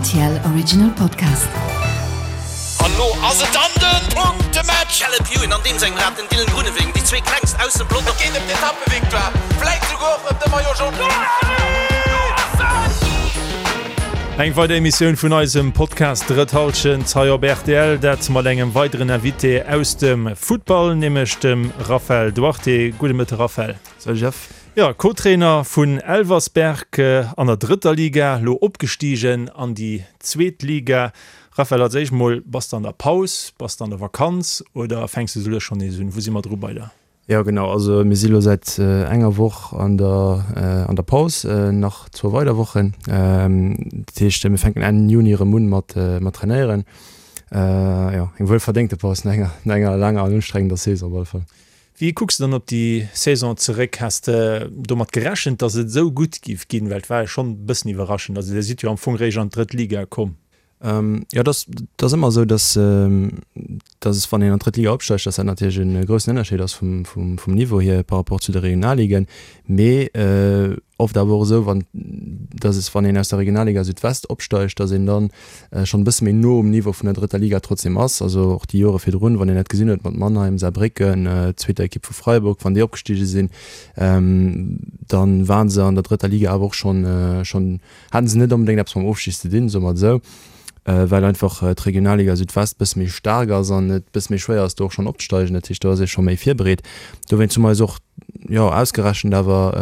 RTL Original Podcast. An lo ass et dann den Punktematch! Caleb Ewan an deem sengem Rad, den Dylan Groenewegen, déi zwee klengst aus dem Pelotong. Et geet ëm d'Etappevictoire, vläit souguer och ëm de Maillot Jaune. Eng weider Emissioun vun eisem Podcast Drëtt Hallschent hei op rtl, dat mat engem weideren Invité aus dem Futtball, nämlech dem Raphael Duarte. Gudde Mëtte Raphael. Salut Jeff. Jo, Co-Trainer vun Elversberg an der drëtter Liga, lo opgestigen an déi zweet Liga. Raphael, als éischt mol, bass de an der Paus, bass de an der Vakanz oder fänks de souguer schonn nees un? Wou si mer dru bei der? Jo genau, also mir si lo säit enger Woch an der an der Paus, nach zwou weider Wochen. Dat heescht mir fänken Enn Juni erëm un mat mat trainéieren. Jo, eng wuelverdéngte Paus no enger no enger laanger an ustrengender Saison op alle Fall. Wéi kucks de dann op déi Saison zeréck? Has de domat gerechent, datt et esou gutt giff ginn? Well et war jo schonn e bëssen iwwerraschend. Also dir sidd jo am Fong réischt an d'drëtt Liga komm. Jo, et ass, et ass ëmmer esou, datt, datt es, wann een an d'drëtt Liga opsteigt, datt dat natierlech e groussen Ënnerscheed ass vum, vum, vum Niveau hier par rapport zu de Regionalligen. Mee oft awer och esou, wann, datt es, wann een aus der Regionalliga Südwest opsteigt, datt een dann schonn e bësse méi no um Niveau vun der drëtter Liga trotzdem ass. Also och déi Jore virdrun, wann een dat gesinn huet mat Mannheim, Saarbrécken, zweeter Ekipp vu Freiburg, wann déi opgestige sinn, dann waren se an der drëtter Liga awer och schonn, schonn haten se net onbedéngt eppes mam Ofstig ze dinn, soe mer et esou, well einfach d'Regionalliga Südwest e bësse méi staark ass an et e bësse méi schwéier ass do och schonn opzesteigen. Dat heescht, do ass ee scho méi virbereet. Dowéinst hu mer eis och, jo, ausgerechent awer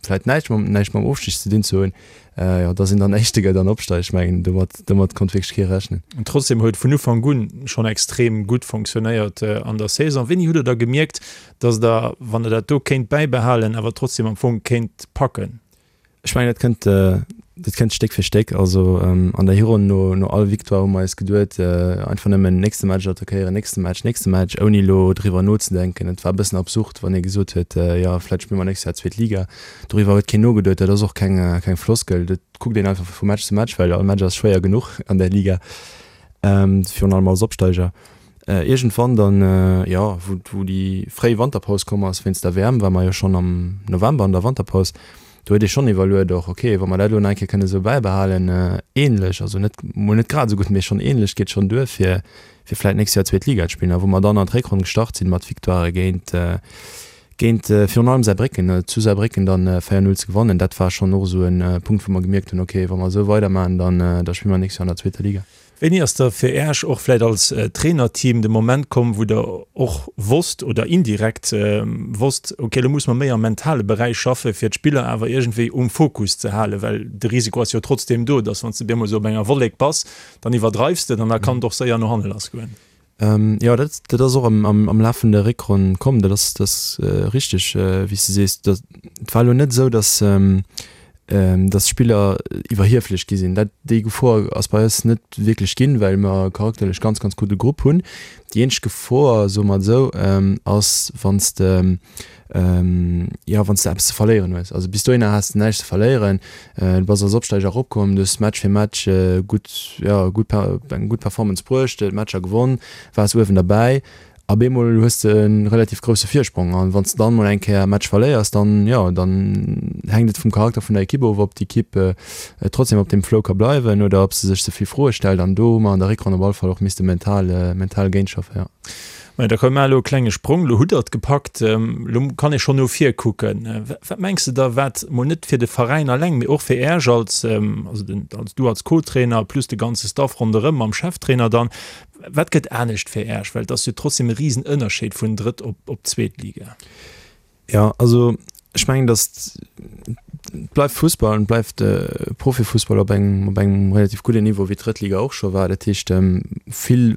vläicht näischt mam, näischt mam Ofstig ze dinn ze hunn, jo, dass een dann Éischte gëtt an opsteigt. Ech mengen, domat, domat konnt wierklech kee rechnen. An trotzdem huet vun Ufank un schonn extrem gutt fonctionnéiert an der Saison. Wéini hutt Der da gemierkt, dass Der, wann Der dat do kéint bäibehalen, awer trotzdem am Fong kéint packen? Ech mengen, dat kënnt, dat kënnt Stéck fir Stéck. Also an der Hironn no, no all Victoire hu mer eis geduet, einfach nëmmen nächste Match attackéieren, nächste Match, nächste Match, ouni elo driwwer nozedenken. Et war e bëssen absurd, wann ee gesot huet, jo vläicht spille mer nächst Joer zweet Liga. Doriwwer huet keen nogeduet. Dat ass och keng, keng Floskel. Dat kuckt een einfach vu Match zu Match, well all Match ass schwéier genuch an där Liga, virun allem als Opsteiger. Iergendwann dann, jo, wou, wou déi fréi Wanterpaus komm ass wéinst der WM, war mer jo schonn am November an der Wanterpaus, do huet ee schonn iwwerluet och, okay, wa mer dat elo nach eng Kéier kënne sou bäibehalen, ähnlech, also net, mol net grad esou gutt, mee schonn ähnlech, geet schonn duer fir, fir vläit d'nächst Joer zweet Liga ze spillen. A wou mer dann an d'Réckronn gestart sinn mat Victoirë géint, géint virun allem Saarbrécken, zu Saarbrécken dann 4, 0 ze gewannen, dat war schonn och esou e Punkt, wou mer gemierkt hunn, okay, wa mer esou weidermaachen, dann, da spille mer d'nächst Joer an der zweeter Liga. Wéini ass da fir Äech och vläit als Trainerteam de Moment komm, wou Der och wosst oder indirekt wosst, okay, elo musse mer méi am mentale Beräich schaffen, fir d'Spiller awer iergendwéi um Fokus ze halen? Well de Risiko ass jo trotzdeem do, dass wann s de op eemol esou op enger Wollek bass, dann iwwerdreifs de et an da kann et och séier no hanne lassgoen. Jo, dat dat ass och am am Laf vun der Réckronn komm. Dat ass dat ass richteg, wéi s de sees. Dat et war elo net esou, datt datt d'Spiller iwwerhieflech gi sinn. Dat déi Gefor ass bei eis net wierklech ginn, well mer charakterlech ganz ganz gudde Grupp hunn. Déi eenzeg Gefor, soe mer et esou, ass wann s de jo wann s de eppes ze verléieren hues. Also bis dohinner has de näischt ze verléieren, du bass als Opsteiger eropkomm, du hues Match fir Match gutt, jo gutt eng gutt Performance bruecht, d'Matcher gewonn, waars uewen derbäi. Op eemol hues de e relativ grousse Virsprong an wann s de dann mol eng Kéier e Match verléiers, dann jo dann hänkt et vum Charakter vun der Ekipp of, ob d'Ekipp trotzdem op deem Flow ka bleiwen oder ob se sech ze vill Froe stellt an do hu mer an der Réckronn op alle Fall och misste mental mental géintschaffen, jo. Majo, da komm, maach elo e klenge Sprong. Elo hutt Der et gepackt, elo kann ee schonn no vir kucken. Wat mengs de da, wat mol net fir de Veräin alleng, mee och fir Äech als, also den, als du als Co-Trainer plus de ganze Staff ronderëm mam Cheftrainer dann, wat gëtt anescht fir Äech? Well et ass jo trotzdem e Risenënnerscheed vun Drëtt op, op zweet Liga. Jo, also ech mengen, datt et bleift Fussball an et bleift Profifussball op engem, op engem relativ gudden Niveau, wéi d'Drëttliga och scho war. Dat heescht, vill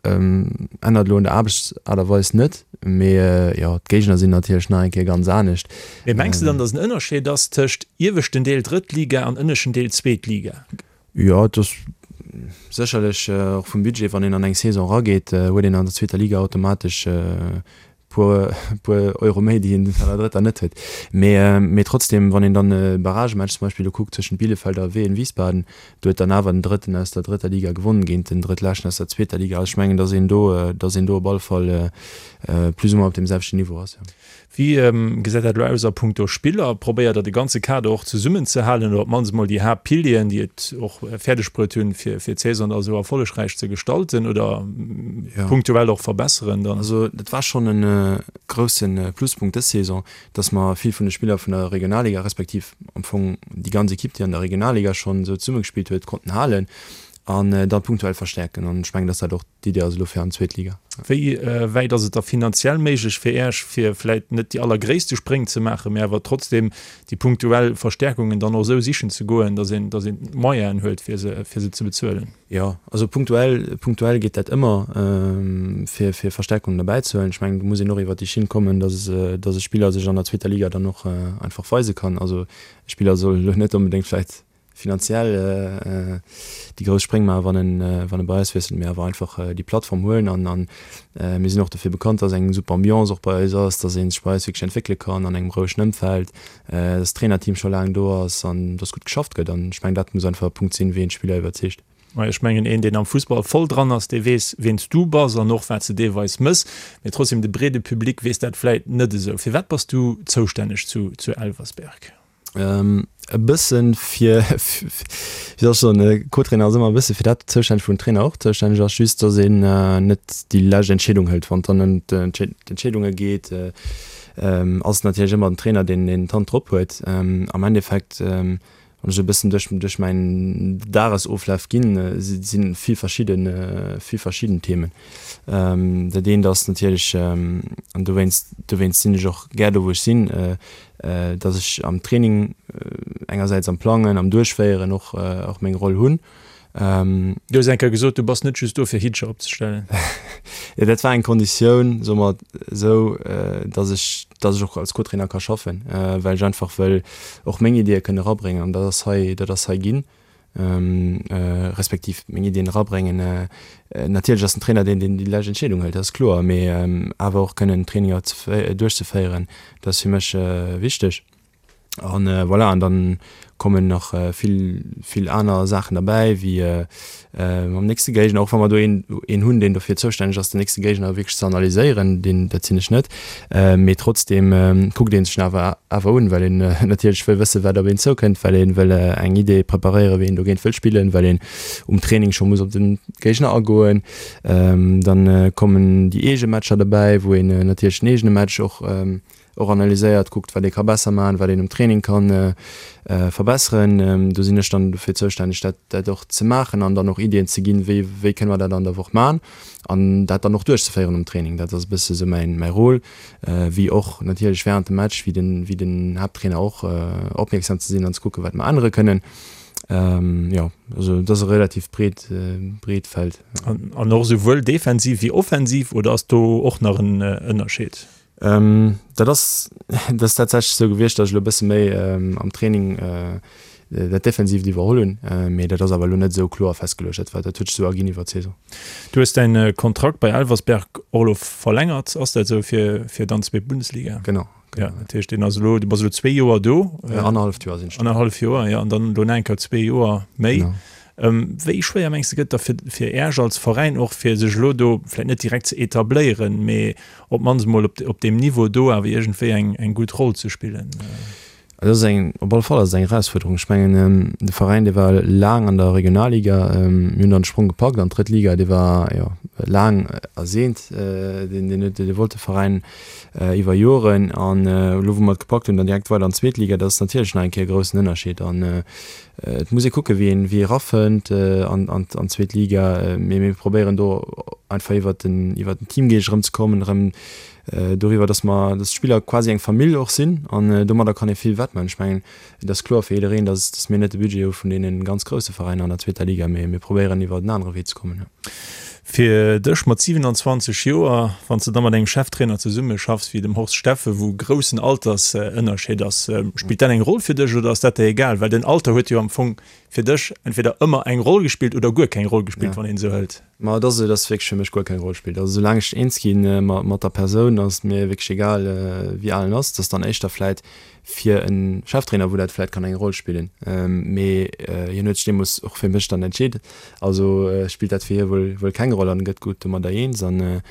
Ännert elo un der Aarbechtsaart a Weis net, mee jo, d'Géigner sinn natierlech nach eng Kéier ganz anescht. Mee mengs de dann, datt en Ënnerscheed ass tëscht ieweschten Deel drëtt Liga an ënneschten Deel zweet Liga? Jo, et ass sécherlech och vum Budget, wann een an eng Saison erageet, huet een an der zweeter Liga automatesch e puer, puer Euro méi, déi een an der drëtter net huet. Mee, mee trotzdem, wann een dann e Barragematch zum Beispill elo kuckt tëschent Bielefeld a Wehen Wiesbaden, do huet dann awer den Drëtten aus der drëtter Liga gewonnen géint den Drëttleschten aus der zweeter Liga. Also ech mengen, datt een do, datt een do op alle Fall plus ou moins op deem selwechten Niveau ass, jo. Wéi gesäit dat elo aus a punkto Spiller? Probéiert Der de ganze Kader och zesummenzehalen oder op d'mannst emol déi Haaptpilieren, déi et och fäerdeg bruet hunn, fir d'Saison da esou erfollegräich ze gestalten oder punktuell och verbesseren dann? Also dat war schonn e grousse Pluspunkt dës Saison, dass mer vill vun de Spiller vun der Regionalliga, respektiv am Fong déi ganz Ekipp, déi an der Regionalliga schonn esou zesummegespillt huet, konnten halen an da punktuell verstäerken. An ech mengen, dass dat och D'Idee ass elo fir an d'zweet Liga. Wéi wäit ass et da finanziell méiglech fir Äech, fir vläit net déi allergréisste Spréng ze maachen, mä awer trotzdem déi punktuell Verstärkungen dann och esou sichen ze goen, datt een, datt een d'Moyenen huet, fir se, fir se ze bezuelen? Jo, also punktuell, punktuell geet dat ëmmer, fir, fir Verstärkungen erbäizehuelen. Ech mengen, do muss een och iwwert déi Schinn kommen, datt, datt e Spiller sech an der zweeter Liga dann och einfach weise kann. Also e Spiller soll elo net onbedéngt vläicht finanziell déi grouss Spréng maachen, wann en, wann e bei eis wiesselt, mee awer einfach déi Plattform huelen an an mir sinn och dofir bekannt, dass eng super Ambiance och bei eis ass, dass ee sech bei eis wierklech entwéckele kann an engem rouegen Ëmfeld, dass d'Trainerteam scho laang do ass an dass gutt geschafft gëtt an ech mengen, dat muss einfach e Punkt sinn, wéi een d'Spiller iwwerzeegt. Mä ech mengen, een, deen am Fussball voll dran ass, dee weess, wien s du bass an och wat s de deelweis mëss. Mee trotzdem, de breede Public weess dat vläit net esou. Firwat bass du zoustänneg zu zu Elversberg? E bëssen fir, wéi soll ech soen, e Co-Trainer ass ëmmer e bësse fir dat zoustänneg, wou den Trainer och zoustänneg ass, just datt een net déi lescht Entscheedung hëlt. Wann et dann ëm d'Entscheedunge geet, ass et natierlech ëmmer den Trainer, deen d'Hand drop huet. Am Endeffekt Wann ech e bëssen duerch duerch mäin Dagesoflaf ginn, si vill verschidde vill verschidden Themen. Dat eent ass natierlech, an dowéinst dowéinst sinn ech och gär do wou ech sinn, datt ech am Training engersäits am Plangen, am Duerchféieren och och meng Roll hunn. Du hues eng Kéier gesot, du bass net just do fir Hittcher opzestellen. Jo, dat war eng Konditioun, soe mer esou, datt ech, datt ech och als Co-Trainer ka schaffen, well ech einfach wëll och meng Ideeë kënnen erabréngen an dat ass hei, dat ass hei ginn, respektiv meng Iddien erabréngen. Natierlech ass den Trainer deen, deen déi lescht Entscheedung hëlt, dat ass kloer, mee awer och kënnen Traininger duerchzeféieren, dat ass fir mech wichteg. An voilà, an dann kommen nach vill, vill aner Saachen derbäi, wéi mam nächste Géigner, och wa mer do een, een hunn, deen dofir zoustänneg ass, den nächste Géigner wierklech ze analyséieren, deen, dat sinn ech net, mee trotzdeem kuckt ee sech en awer, awer un, well een natierlech wëll wëssen, wat op een zoukënnt, well ee wëll eng Idee preparéieren, wéi een dogéint wëll spillen, well een um Training scho muss op de Géigner agoen. Dann kommen déi eege Matcher derbäi, wou een natierlech den eegene Match och och analyséiert, kuckt wat ee ka besser maachen, wat een um Training ka verbesseren. Do sinn ech dann dofir zoustänneg dat dat och ze maachen an dann och Iddien ze ginn, wéi wéi kënne mer dat an der Woch maachen an dat dann och duerchzeféieren um Training. Dat ass e bësse sou mäin mäi Rôle, wéi och natierlech während dem Match, wéi den wéi den Haapttrainer och opmierksam ze sinn an ze kucken, wat mer ännere kënnen. Jo, also dat ass e relativ breet breet Feld. An och esouwuel defensiv wéi offensiv oder ass do och nach en Ënnerscheed? Dat ass, dat ass tatsächlech esou gewiescht, datt ech elo e bësse méi am Training dat Defensiivt iwwerholl hunn, mee dat ass awer elo net esou kloer festgeluecht. Dat war, dat huet sech esou erginn iwwer d'Saison. Du hues däin Kontrakt bei Elversberg och elo verlängert, ass dat esou, fir, fir dann zweet Bundesliga? Genau, genau. Ja, dat heescht, deen ass elo, du bass elo zwee Joer do. Annerhalleft Joer sinn ech do. Annerhallef Joer, jo, an dann elo nach eng Kéier zwee Joer méi. Genau. Wéi schwéier mengs de gëtt da fir fir Äerch als Veräin och fir sech elo do vläicht net direkt ze etabléieren, mee op d'mannst emol op op deem Niveau do awer iergendwéi eng eng gutt Roll ze spillen? Et ass eng, op alle Fall ass et eng Erausfuerderung. Ech mengen de Veräin dee war laang an der Regionalliga, mir hunn dann de Sprong gepackt an d'drëtt Liga, dee war jo laang erseent, deen deen huet dee wollt de Veräin iwwer Joren an elo wou mer et gepackt hunn dann direkt weider an d'zweet Liga, dat ass natierlech nach eng Kéier e groussen Ënnerscheed an Et muss ee kucken, wéi een, wéi ee erafënnt an, an, an d'zweet Liga. Mee mir probéieren do einfach iwwert den, iwwert den Teamgeescht erëmzekommen, erëm doriwwer, dass mer, dass d'Spiller quasi eng Famill och sinn an domadder kann ee vill wettmaachen. Ech mengen, et ass kloer fir jiddereen, dass, dass mir net de Budget hu vun deene ganz grousse Veräiner an der zweeter Liga, mee mir probéieren iwwert en anere Wee ze kommen, jo. Fir dech mat 27 Joer, wann s de da mat engem Cheftrainer zesummeschaffs wéi dem Horst Steffen, wou groussen Altersënnerscheed ass, spillt dat eng Roll fir dech oder ass dat der egal? Well den Alter huet jo am Fong fir dech entweder ëmmer eng Roll gespillt oder guer keng Roll gespillt, wann een esou hëlt. Ma et ass esou, dass wierklech fir mech guer keng Roll spillt. Also soulaang ech eens gi mat der Persoun, ass et mir wierklech egal, wéi al en ass. Et ass dann éischter vläit fir e Cheftrainer, wou dat vläit kann eng Roll spillen. Mee hien huet sech deemools och fir mech dann entscheet. Also spillt dat fir hie wuel wuel keng Roll an gëtt gutt domadder eens. An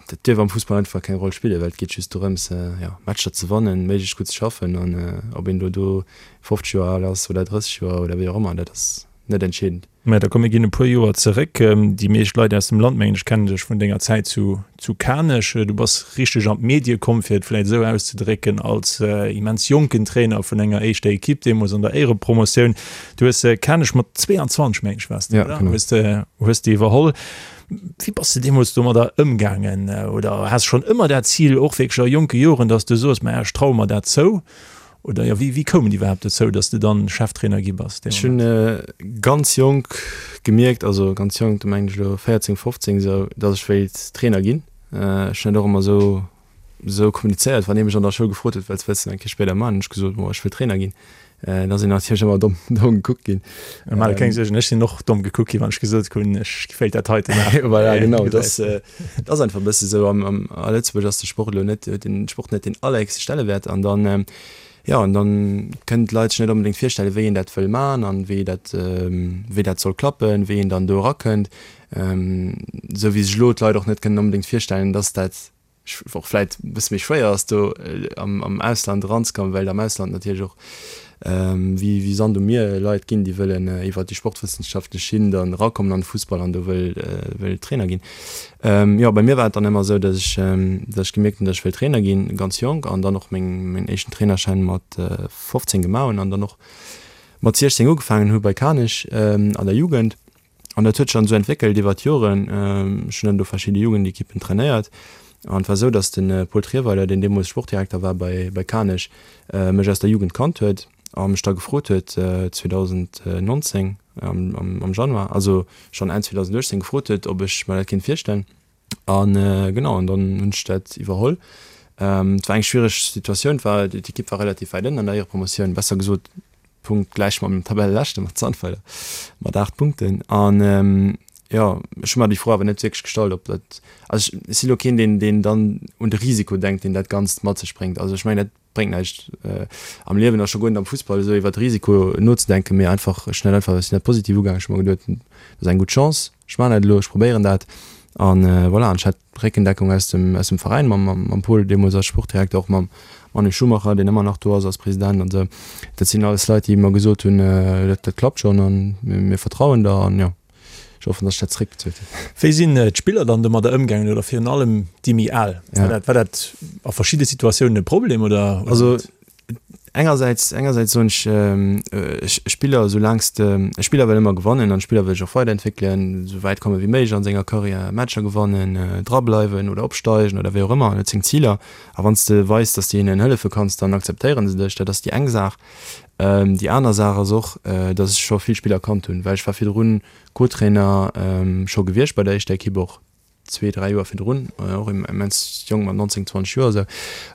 dat dierf am Fussball einfach keng Roll spillen, well et geet just dorëms, jo, Matcher ze wannen, méiglechst gutt ze schaffen. An ob een do do 50 Joer al ass oder 30 Joer oder wéi och ëmmer, dat ass net entscheedend. Mä da komm mir ginn e puer Joer zeréck. Déi meescht Leit aus dem Land, mengen ech, kennen dech vun denger Zäit zu zu Kanech. Du bass richteg an d'Medie komm, fir et vläicht esou auszedrécken, als immens jonken Trainer vun enger éischter Ekipp, deemools an der Éierepromotioun. Du hues Kanech mat 22, mengen ech, waars de, oder? Hues de hues de iwwerholl. Wéi bass de deemools domadder ëmgaangen? Oder has schonn ëmmer dat Zil, och wierklech a jonke Joren, datt s de soos, Maja, ech traue mer dat zou? Oder jo, wéi koum et iwwerhaapt dozou, datt s de dann Cheftrainer gi bass dee Ech hunn Moment? ganz jonk gemierkt, also ganz jonk, do mengen ech elo 14, 15 esou, datt ech wéilt Trainer ginn. Ech hunn dat och ëmmer esou esou kommunizéiert, wann ee mech an der Schoul gefrot huet, wat wëlls de eng Kéier spéider man, hunn ech gesot, bon, ech wëll Trainer ginn. Da sinn natierlech ëmmer domm domm gekuckt ginn. Mä keng Suergen, ech sinn och domm gekuckt ginn, wann ech gesot hunn, ech wéilt dat heite maachen. Voilà, genau, dat ass Et ass einfach e bësse sou, am, am, a Lëtzebuerg ass de Sport elo net, huet den Sport net deen allerhéchste Stellewäert an dann, jo, an dann kënnen d'Leit sech net onbedéngt virstellen, wéi een dat wëll man an wéi dat, wéi dat soll klappen, wéi een dann do erakënnt. Esou wéi sech elo d'Leit och net kënnen onbedéngt virstellen, dass dat och vläit e bësse méi schwéier ass do am, am Ausland eranzekommen, well am Ausland natierlech och wéi, wéi Sand um Mier Leit ginn, déi wëllen iwwert déi sportwëssenschaftlech Schinn dann erakommen an de Fussball an do wëll, wëll Trainer ginn. Jo, bei mir war et dann ëmmer esou, datt ech, datt ech gemierkt hunn, datt ech wëll Trainer ginn, ganz jonk an dann och meng, mäin éischten Trainerschäin mat 15 gemaach hunn an dann och mat 16 ugefaangen hu bei Kanech an der Jugend. An dat huet sech dann esou entwéckelt iwwer d'Joren. Ech hunn dann do verschidde Jugendekippen trainéiert. An et war esou, datt de Paul Trierweiler, deen deemools Sportdirekter war bei bei Kanech, mech aus der Jugend kannt huet a mech da gefrot huet 2019 am am Januar, also schonn Enn 2018 gefrot huet, ob ech mer dat kéint virstellen. An genau, an dann hunn ech dat iwwerholl. Et war eng schwiereg Situatioun, et war, d'Ekipp war relativ wäit ënnen an der Éierepromotioun, besser gesot punktgläich mam Tabelleleschte mat Sandweiler mat 8 Punkten. An jo, ech hu mer déi Fro awer net wierklech gestallt, ob dat, also ech si lo keen, deen, deen dann un de Risiko denkt, deen dat Ganzt mat sech bréngt. Also ech mengen, dat bréngt näischt am Liewen a scho guer net am Fussball esou iwwert Risiko nozedenken, mee einfach, ech hunn dat einfach, ech sinn dat positiv ugaangen, ech hu mer geduet, dat ass eng gutt Chance, ech maachen dat elo, ech probéieren dat an voilà. An ech hat Réckendeckung aus dem, aus dem Veräin mam, mam Paul deemools als Sportdirekter, och mam Manu Schumacher, deen ëmmer nach do ass als President an esou. Dat sinn alles Leit, déi mer gesot hunn, dat, dat klappt schonn an mir vertrauen der an jo. Ech hoffen, dass ech dat zeréckbezuelt hunn. Wéi sinn d'Spiller dann domadder ëmgaangen oder virun allem déi méi al? War dat, war dat a verschidde Situatiounen e Problem oder? Also engersäits, engersäits soen ech, e Spiller, soulaang s de, e Spiller wëll ëmmer gewannen an e Spiller wëll sech och weiderentwéckelen, esou wäit komme wéi méiglech an senger Karriär, Matcher gewannen, drableiwen oder opsteigen oder wéi och ëmmer, en huet seng Ziler. A wann s de weis, dass de hinnen hëllefe kanns, dann akzeptéiere se dech. Dat ass déi eng Saach. Déi aner Saach ass och, dass ech scho vill Spiller kannt hunn, well ech war virdrun Co-Trainer scho gewiescht bei der éischter Ekipp, och zwee, dräi Joer virdrun, och immens jonk mat 19, 20 Joer esou.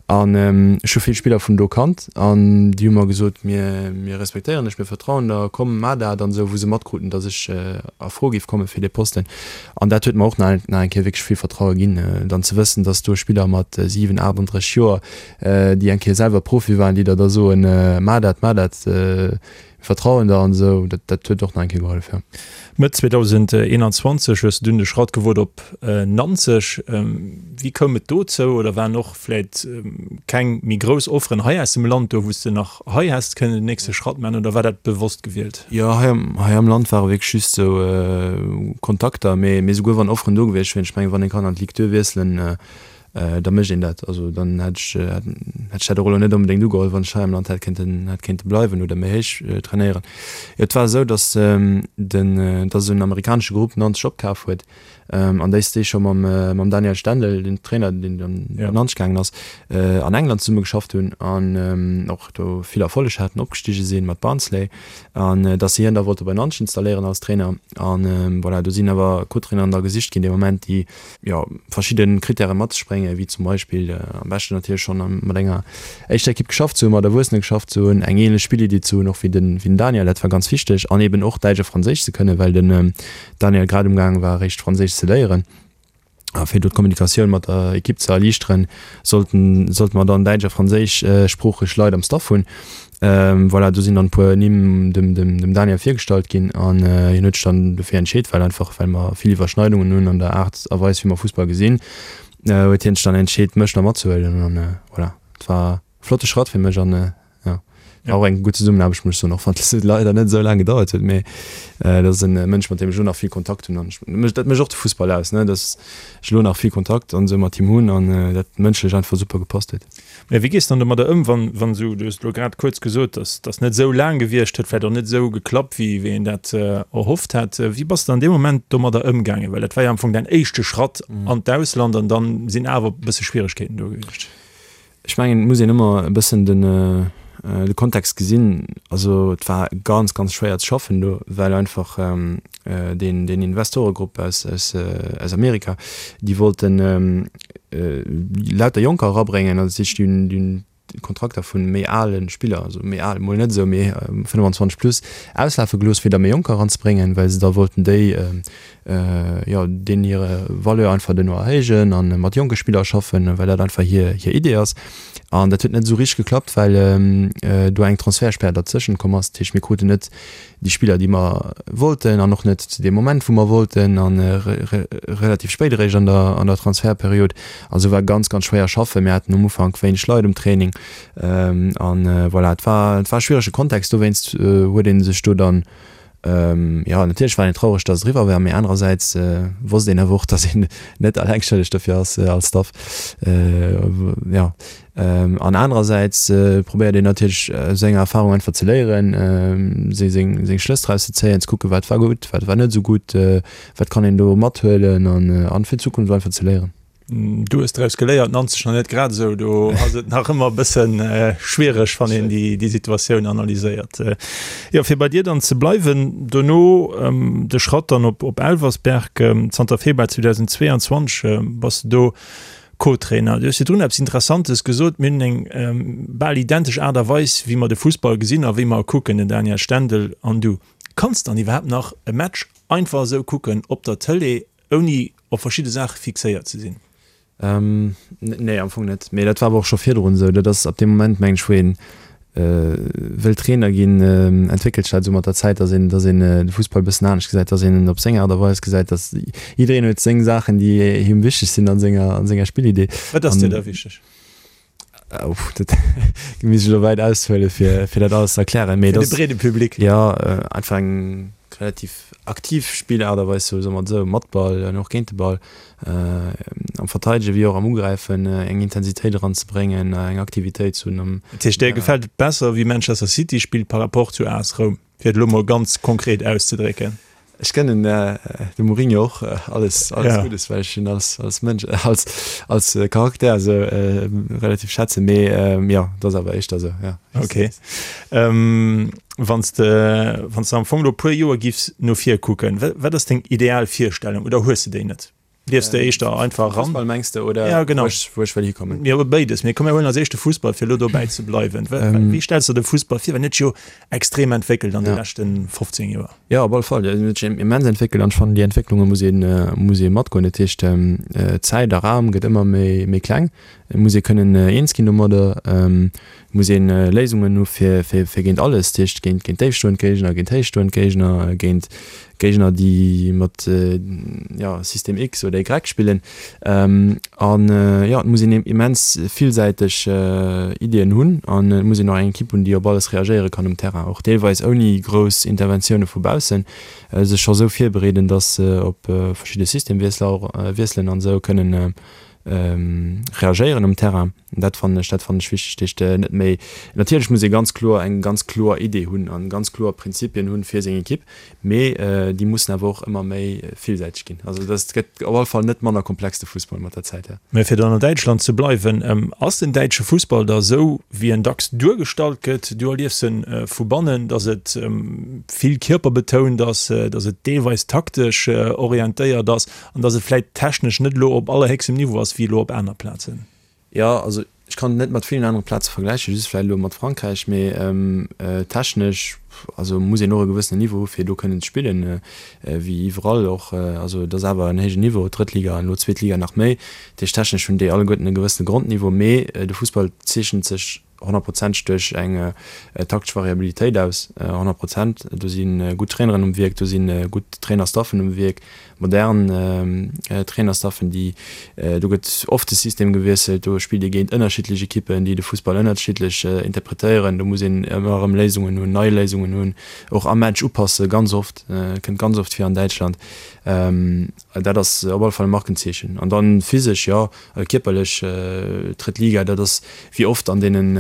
An ech hu vill Spiller vun do kannt an déi hu mer gesot, mir, mir respektéieren dech, mir vertrauen der, komm, maach dat an esou, wou se matkruten, dass ech a Fro géif komme fir dee Posten. An dat huet mer och nach eng Kéier wierklech vill Vertraue ginn, dann ze wëssen, dass do Spiller mat 7, 38 Joer, déi eng Kéier selwer Profi waren, déi der da soen, Maach dat, maach dat, mir vertrauen der an esou. Dat, dat huet och nach eng Kéier gehollef, jo. Mëtt 2021 hues de dunn de Schratt gewot op Nanzeg. Wéi koum et dozou oder waren och vläit keng méi grouss Offeren hei aus dem Land do, wou s de nach hei häss kënnen den nächste Schratt maachen oder war dat bewosst gewielt? Jo, hei am, hei am Land ware wierklech just esou Kontakter, mee, mee souguer wann Offeren do gewiescht wieren, ech mengen, wann ee kann an d'Ligue 2 wiesselen. da mécht een dat. Also dann hätt ech hätt ech dat och elo net onbedéngt ugeholl, wann ech hei am Land hätt kéinten hätt kéinte bleiwen oder méi héich trainéieren. Jo, et war esou, datt den datt esou en amerikanesche Grupp Nanzeg opkaf huet an déi déi scho mam mam Daniel Stendel, den Trainer, deen dann op Nanzeg gaangen ass, an England zesumme geschafft hunn an och do vill Erfolleg haten, opgestige sinn mat Barnsley an datt si hien da wollte bei Nanzeg installéieren als Trainer. An voilà, do sinn awer Co-Traineren da gesicht ginn dee Moment, déi jo, verschidde Krittäre mat sech bréngen, wéi zum Beispill am beschten natierlech schonn mat enger éischter Ekipp geschafft ze hunn, mat Erwuessene geschafft ze hunn, eng ähnlech Spilliddi ze hunn och wéi den, wéi den Daniel, dat war ganz wichteg, an eben och Däitsch a Franséisch ze kënnen, well den Daniel grad umgaange war eréischt Franséisch ze léieren. A fir do d'Kommunikatioun mat der Ekipp ze erliichteren, sollten, sollte mer dann däitsch a franséischsproocheg Leit am Staff hunn. Voilà, do sinn dann e puer Nimm dem, dem, dem Daniel virgestallt ginn an hien huet sech dann dofir entscheet, well einfach, well mer vill Iwwerschneidungen hunn an der Aart a Weis, wéi mer Fussball gesinn, huet hien sech dann entscheet, mech da matzehuelen an voilà, et war e flotte Schratt fir mech an jo, war och eng gutt Zesummenaarbecht, muss ech soen, och wann et leider net esou laang gedauert huet, mee dat ass e Mënsch, mat deem ech elo nach vill Kontakt hunn an ech, dat mécht och de Fussball aus, ne, dass ech elo nach vill Kontakt an esou mat him hunn an dat mënschlech einfach super gepasst huet. Mä wéi gees de dann domadder ëm, wann, wann esou, du hues elo grad kuerz gesot, dass dass net esou laang gewiescht huet, vläicht och net esou geklappt, wéi wéi een dat erhofft hat. Wéi bass de an deem Moment domadder ëmgaangen? Well dat war jo am Fong däin éischte Schratt an d'Ausland an dann sinn awer e bësse Schwieregkeeten do gewiescht. Ech mengen, et muss een ëmmer e bëssen den de Kontext gesinn. Also et war ganz, ganz schwéier ze schaffen do, well einfach deen deen Investoregrupp aus aus aus Amerika, déi wollten lauter Jonker erabréngen, also dat heescht déi hunn déi hunn d'Kontrakter vu méi ale Spiller, also méi al mol net esou, mee 25 plus, auslafe gelooss, fir da méi Jonker eranzebréngen, well se da wollten déi jo deenen hire Valeur einfach duerno erhéijen a mat jonke Spiller schaffen, well dat einfach hir hir Idee ass. An dat huet net esou richteg geklappt, well do eng Transfertspär derzëschent komm ass. Dat heescht, mir kruten net déi Spiller, déi mer wollten an och net zu deem Moment, wou mer wollten a relativ spéit eréischt an der an der Transfertperiod. Also war ganz, ganz schwéier schaffen. Mir haten um Ufank wéineg Leit um Training an voilà, et war et war e schwierege Kontext. Dowéinst huet ee sech do dann, jo natierlech war een traureg, datt et eriwwer war, mee anerersäits wosst een awer och, datt een net alleng schëlleg dofir ass als Staff. Jo. An anerersäits probéiert een natierlech aus enger Erfarung einfach ze léieren, seng seng Schlëss draus ze zéien, ze kucken, wat war gutt, wat war net esou gutt, wat kann een do mathuelen an fir d'Zukunft einfach ze léieren. Du hues draus geléiert, Nanzeg nach net grad esou. Do ass et nach ëmmer e bësse schwiereg, wann een déi déi Situatioun analyséiert. Jo, fir bei dir dann ze bleiwen, dono de Schratt dann op op Elversberg. Zanter Februar 2022 bass de do Co-Trainer, du hues virdrun eppes Interessantes gesot, Mir hunn eng bal identesch Aart a Weis, wéi mer de Fussball gesinn a wéi mer e kucken, den Daniel Stendel an du. Kanns dann iwwerhaapt nach e Match einfach esou kucken op der Tëlee, ouni op verschidde Saache fixéiert ze sinn? Nee, am Fong net. Mee dat war awer och scho virdrun esou. Dat ass ab deem Moment, mengen ech, wou een wëll Trainer ginn, entwéckelt sech dat esou mat der Zäit, datt een, datt een de Fussball e bëssen anescht gesäit, datt een en op seng Aart a Weis gesäit, datt jiddereen huet seng Saachen, déi him wichteg sinn a senger, a senger Spillidee. Wat ass dir da wichteg? Uff, dat misst ech elo wäit aushuelen, fir, fir dat alles ze erklären. Mee Fir de breede Public. Jo, einfach eng relativ aktiv Spillaart a Weis, soe mer et esou, mat Ball an och géint de Ball. Am Verteidegen wéi och am Ugräifen eng Intensitéit eranzebréngen, eng Aktivitéit ze hunn. Dat heescht, där gefält et besser, wéi Manchester City spillt par rapport zu AS Roum, fir et elo mol ganz konkret auszedrécken? Ech gënnen dem Mourinho och alles, alles Guddes, well ech hien als, als Mënsch, als, als Charakter esou relativ schätzen, mee jo, et ass awer éischter esou, jo. Ok. Wann s de, wann s de am Fong elo e puer Joer giffs no vir kucken, wat ass deng ideal Virstellung oder hues de déi net? Liefs de éischter einfach eran? Fussball mengs de oder ja, genau. wou ech, wou ech wëll hikommen? Jo, béides. Mee komm mir huelen als éischt de Fussball, fir elo dobäi ze bleiwen. Wéi stells de de Fussball vir? Well en huet sech jo extrem entwéckelt an de Ja. leschte 15 Joer. Jo, op alle Fall. En huet sech immens entwéckelt an ech fannen, déi Entwécklunge muss een, muss ee matgoen. Dat heescht, Zäit a Raum gëtt ëmmer méi, méi kleng. Et muss ee kënnen eens ginn domadder. Et muss een Léisungen hu fir fir géint alles, dat heescht géint géint déifstoend Géigner, géint héichstoend Géigner, géint Géigner déi mat jo System X oder Y spillen. An jo et muss een immens villsäiteg Iddien hunn an et muss een och eng Ekipp hunn, déi op alles reagéiere kann um Terrain, och deelweis ouni grouss Interventioune vu baussen, sech scho sou virbereeden, datt se op verschidde Systemwiessler och wiesselen an esou kënnen. Reagéieren um Terrain. Dat fannen ech, dat fannen ech wichteg. Dat heescht net méi, natierlech muss ee ganz kloer eng ganz kloer Idee hunn an ganz kloer Prinzipien hunn fir seng Ekipp, mee déi mussen awer och ëmmer méi villsäiteg ginn. Also dat gëtt op alle Fall net manner komplex de Fussball mat der Zäit, jo. Mä fir dann an Däitschland ze bleiwen, ass den däitsche Fussball da esou wéi en dacks duergestallt gëtt? Du erliefs en vu bannen, datt et vill kierperbetount ass, datt et deelweis taktesch orientéiert ass. An dass et vläit technesch net elo op allerhéchstem Niveau ass wéi elo op aner Plazen. Jo, also ech kann et net mat villen anere Plaze vergläichen, just vläit elo mat Frankräich, mee technesch, also muss een och e gewëssenen Niveau hu fir do kënnen ze spillen, wéi iwwerall och. Also et ass awer en héijen Niveau, d'drëtt Liga an elo d'zweet Liga nach méi. Dat heescht technesch hunn déi alleguerten e gewëssene Grondniveau, mee de Fussball zeechent sech honnertprozenteg duerch eng taktesch Variabilitéit aus, 100 Prozent. Do si gutt Traineren um Wierk, do si gutt Trainerstaffen um Wierk, modern Trainerstaffen, déi, do gëtt oft de System gewiesselt, do spillt ee géint ënnerschiddlech Ekippen, déi de Fussball ënnerschiddlech interpretéieren. Do muss een ëmmer erëm Léisungen hunn, nei Léisungen hunn, och am Match upassen, ganz oft, kënnt ganz oft vir an Däitschland. Dat ass op alle Fall e Markenzeechen. An dann physesch, jo, kierperlech, drëtt Liga, dat ass wéi oft an deenen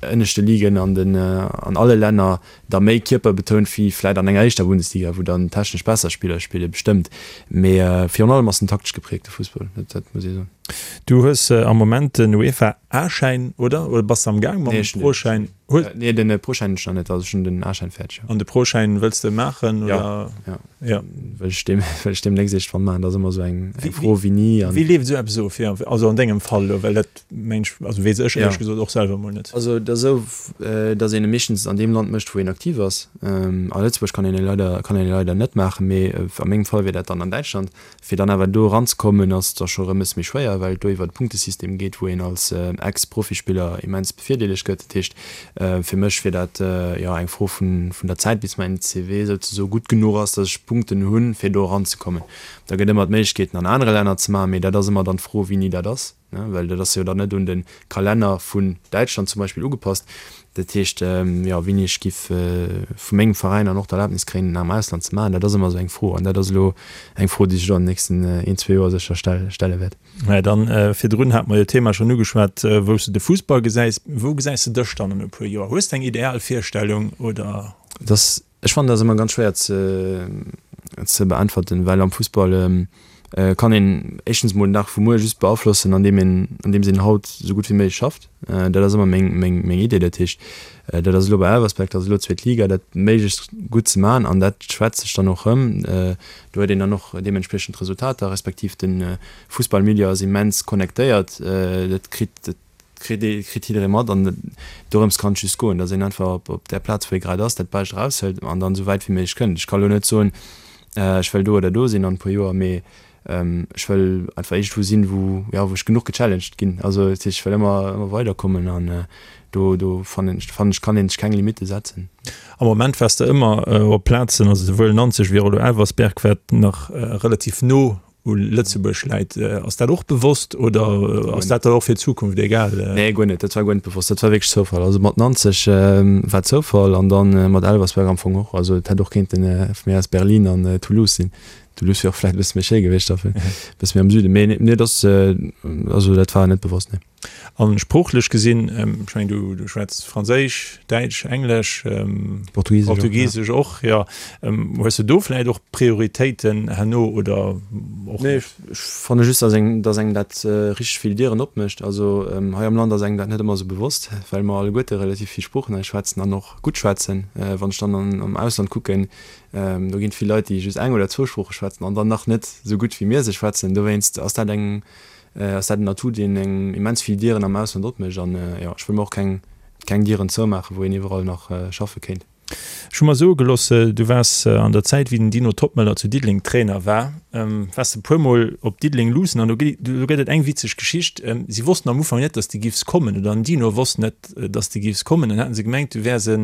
ënneschte Ligen an den, an alle Länner da méi kierperbetount wéi vläit an enger éischter Bundesliga, wou dann technesch besser Spiller spillen, bestëmmt. Mee virun allem ass en taktesch gepräägte Fussball, dat, dat muss ee soen. Du hues am Moment den UEFA A-Schäin, oder? Oder bass de am Gaang mam Pro-Schäin? Nee, den Pro-Schäin hunn ech nach net, also ech hunn den A-Schäin fäerdeg, jo. An de Pro-Schäin wëlls de maachen, oder? Jo, jo. Jo. Wëll ech deem, wëll ech deemnächst iergendwann maachen. Dat ass ëmmer esou eng, eng Fro wéi ni. An. Wéi leeft esou eppes of? Jo, also an dengem Fall elo, well dat mengen ech, also weess ech éierlech gesot och selwer emol net. Also et ass esou, datt een e meeschtens an deem Land mécht, wou een aktiv ass. A Lëtzebuerg kann een e leider, kann een e leider net maachen, mee a mengem Fall wier dat dann an Däitschland. Fir dann awer do eranzekommen, ass da scho rëm e bësse méi schwéier, well et do iwwer e Punktesystem geet, wou een als Ex-Profispiller immens bevirdeelegt gëtt. Dat heescht, fir mech wier dat, jo, eng Fro vun der Zäit, bis mäin CV souzesoe gutt genuch ass, datt ech Punkten hunn, fir do eranzekommen. Da gëtt ëmmer d'Méiglechkeeten an anere Länner ze maachen, mee dat ass ëmmer dann d'Fro, wéini dat ass. Well dat ass jo dann net un de Kalenner vun Däitschland zum Beispill ugepasst. Dat heescht, jo, wéini ech giff vu mengem Veräin dann och d'Erlaabnis kréien, en am Ausland ze maachen, dat ass ëmmer esou eng Fro. An dat ass elo eng Fro, déi sech elo an den nächsten een, zwee Joer sécher stelle wäert. Mä dann, virdrun hate mer jo d'Thema schonn ugeschwat, wou s de de Fussball gesäis. Wou gesäis de dech dann an e puer Joer? Hues de eng ideal Virstellung oder? Et ass Ech fannen dat ëmmer ganz schwéier ze ze beäntwerten, well am Fussball kann een éischtens mol den Dag vu muer just beaflossen, an deem een an deems een haut esou gutt wéi méiglech schafft. Dat ass ëmmer meng meng meng Idee. Dat heescht, dat ass elo bei Elversberg, dat ass elo zweet Liga, dat méiglechst gutt ze maachen an dat schwätzt sech dann och rëm. Do huet een dann och deementspriechend Resultater, respektiv de Fussballmilieu ass immens connectéiert, dat kritt dat kritt ee, kritt jidderee mat an dorëms kann et just goen, datt een einfach op, op där Plaz, wou ee grad ass, dat Bescht eraushëlt an dann esou wäit wéi méiglech kënnt. Ech ka lo net soen, ech wëll do oder do sinn an e puer Joer, mee ech wëll einfach iergendwou sinn, wou, jo, wou ech genuch gechallenged ginn. Also dat heescht, ech wëll ëmmer, ëmmer weiderkommen an do, do fannen ech, fannen ech, kann een sech keng Limitte setzen. Am Moment waars de ëmmer op Plazen, also souwuel Nanzeg wéi och elo Elversberg, wat nach relativ no u Lëtzebuerg läit. Ass dat och bewosst oder ass dat dann och fir d'Zukunft egal? Nee, guer net. Dat war guer net bewosst. Dat war wierklech Zoufall. Also mat Nanzeg war Zoufall an dann mat Elversberg am Fong och. Also et hätt och kéinten vu mir aus Berlin an Toulouse sinn. Toulouse wier och vläicht e bësse méi schéi gewiescht, e bësse méi am Süden. Mee nee, dat ass, also dat war net bewosst, nee. An sproochlech gesinn, ech mengen du, du schwätz Franséisch, Däitsch, Englesch, Portugisesch, Portugisesch och, jo. Hues de do vläicht och Prioritéiten herno oder och net? Nee, ech fanne just, dass engem, dass engem dat richteg vill Dieren opmécht. Also hei am Land ass engem dat net ëmmer esou bewosst, well mer alleguerte relativ vill Sproochen hei schwätzen an och gutt schwätzen. Wann ech dann an, am Ausland kucken, do ginn et vill Leit, déi just eng oder zwou Sprooche schwätzen an dann nach net esou gutt wéi mir se schwätzen. Dowéinst ass dat eng, ass dat en Atout, deen engem immens vill Dieren am Ausland opmécht. An jo, ech wëll mer och keng, keng Dieren zoumaachen, wou een iwwerall nach schaffe kéint. Ech hu mer soe gelooss, du waars an der Zäit, wéi den Dino Toppmöller zu Diddeleng Trainer war, waars de puer Mol op Diddeleng luussen an do gëtt et eng witzeg Geschicht. Si wossten am Ufank net, datt s de giffs kommen, oder den Dino wosst net, datt s de giffs kommen. Dann haten se gemengt, du wäers e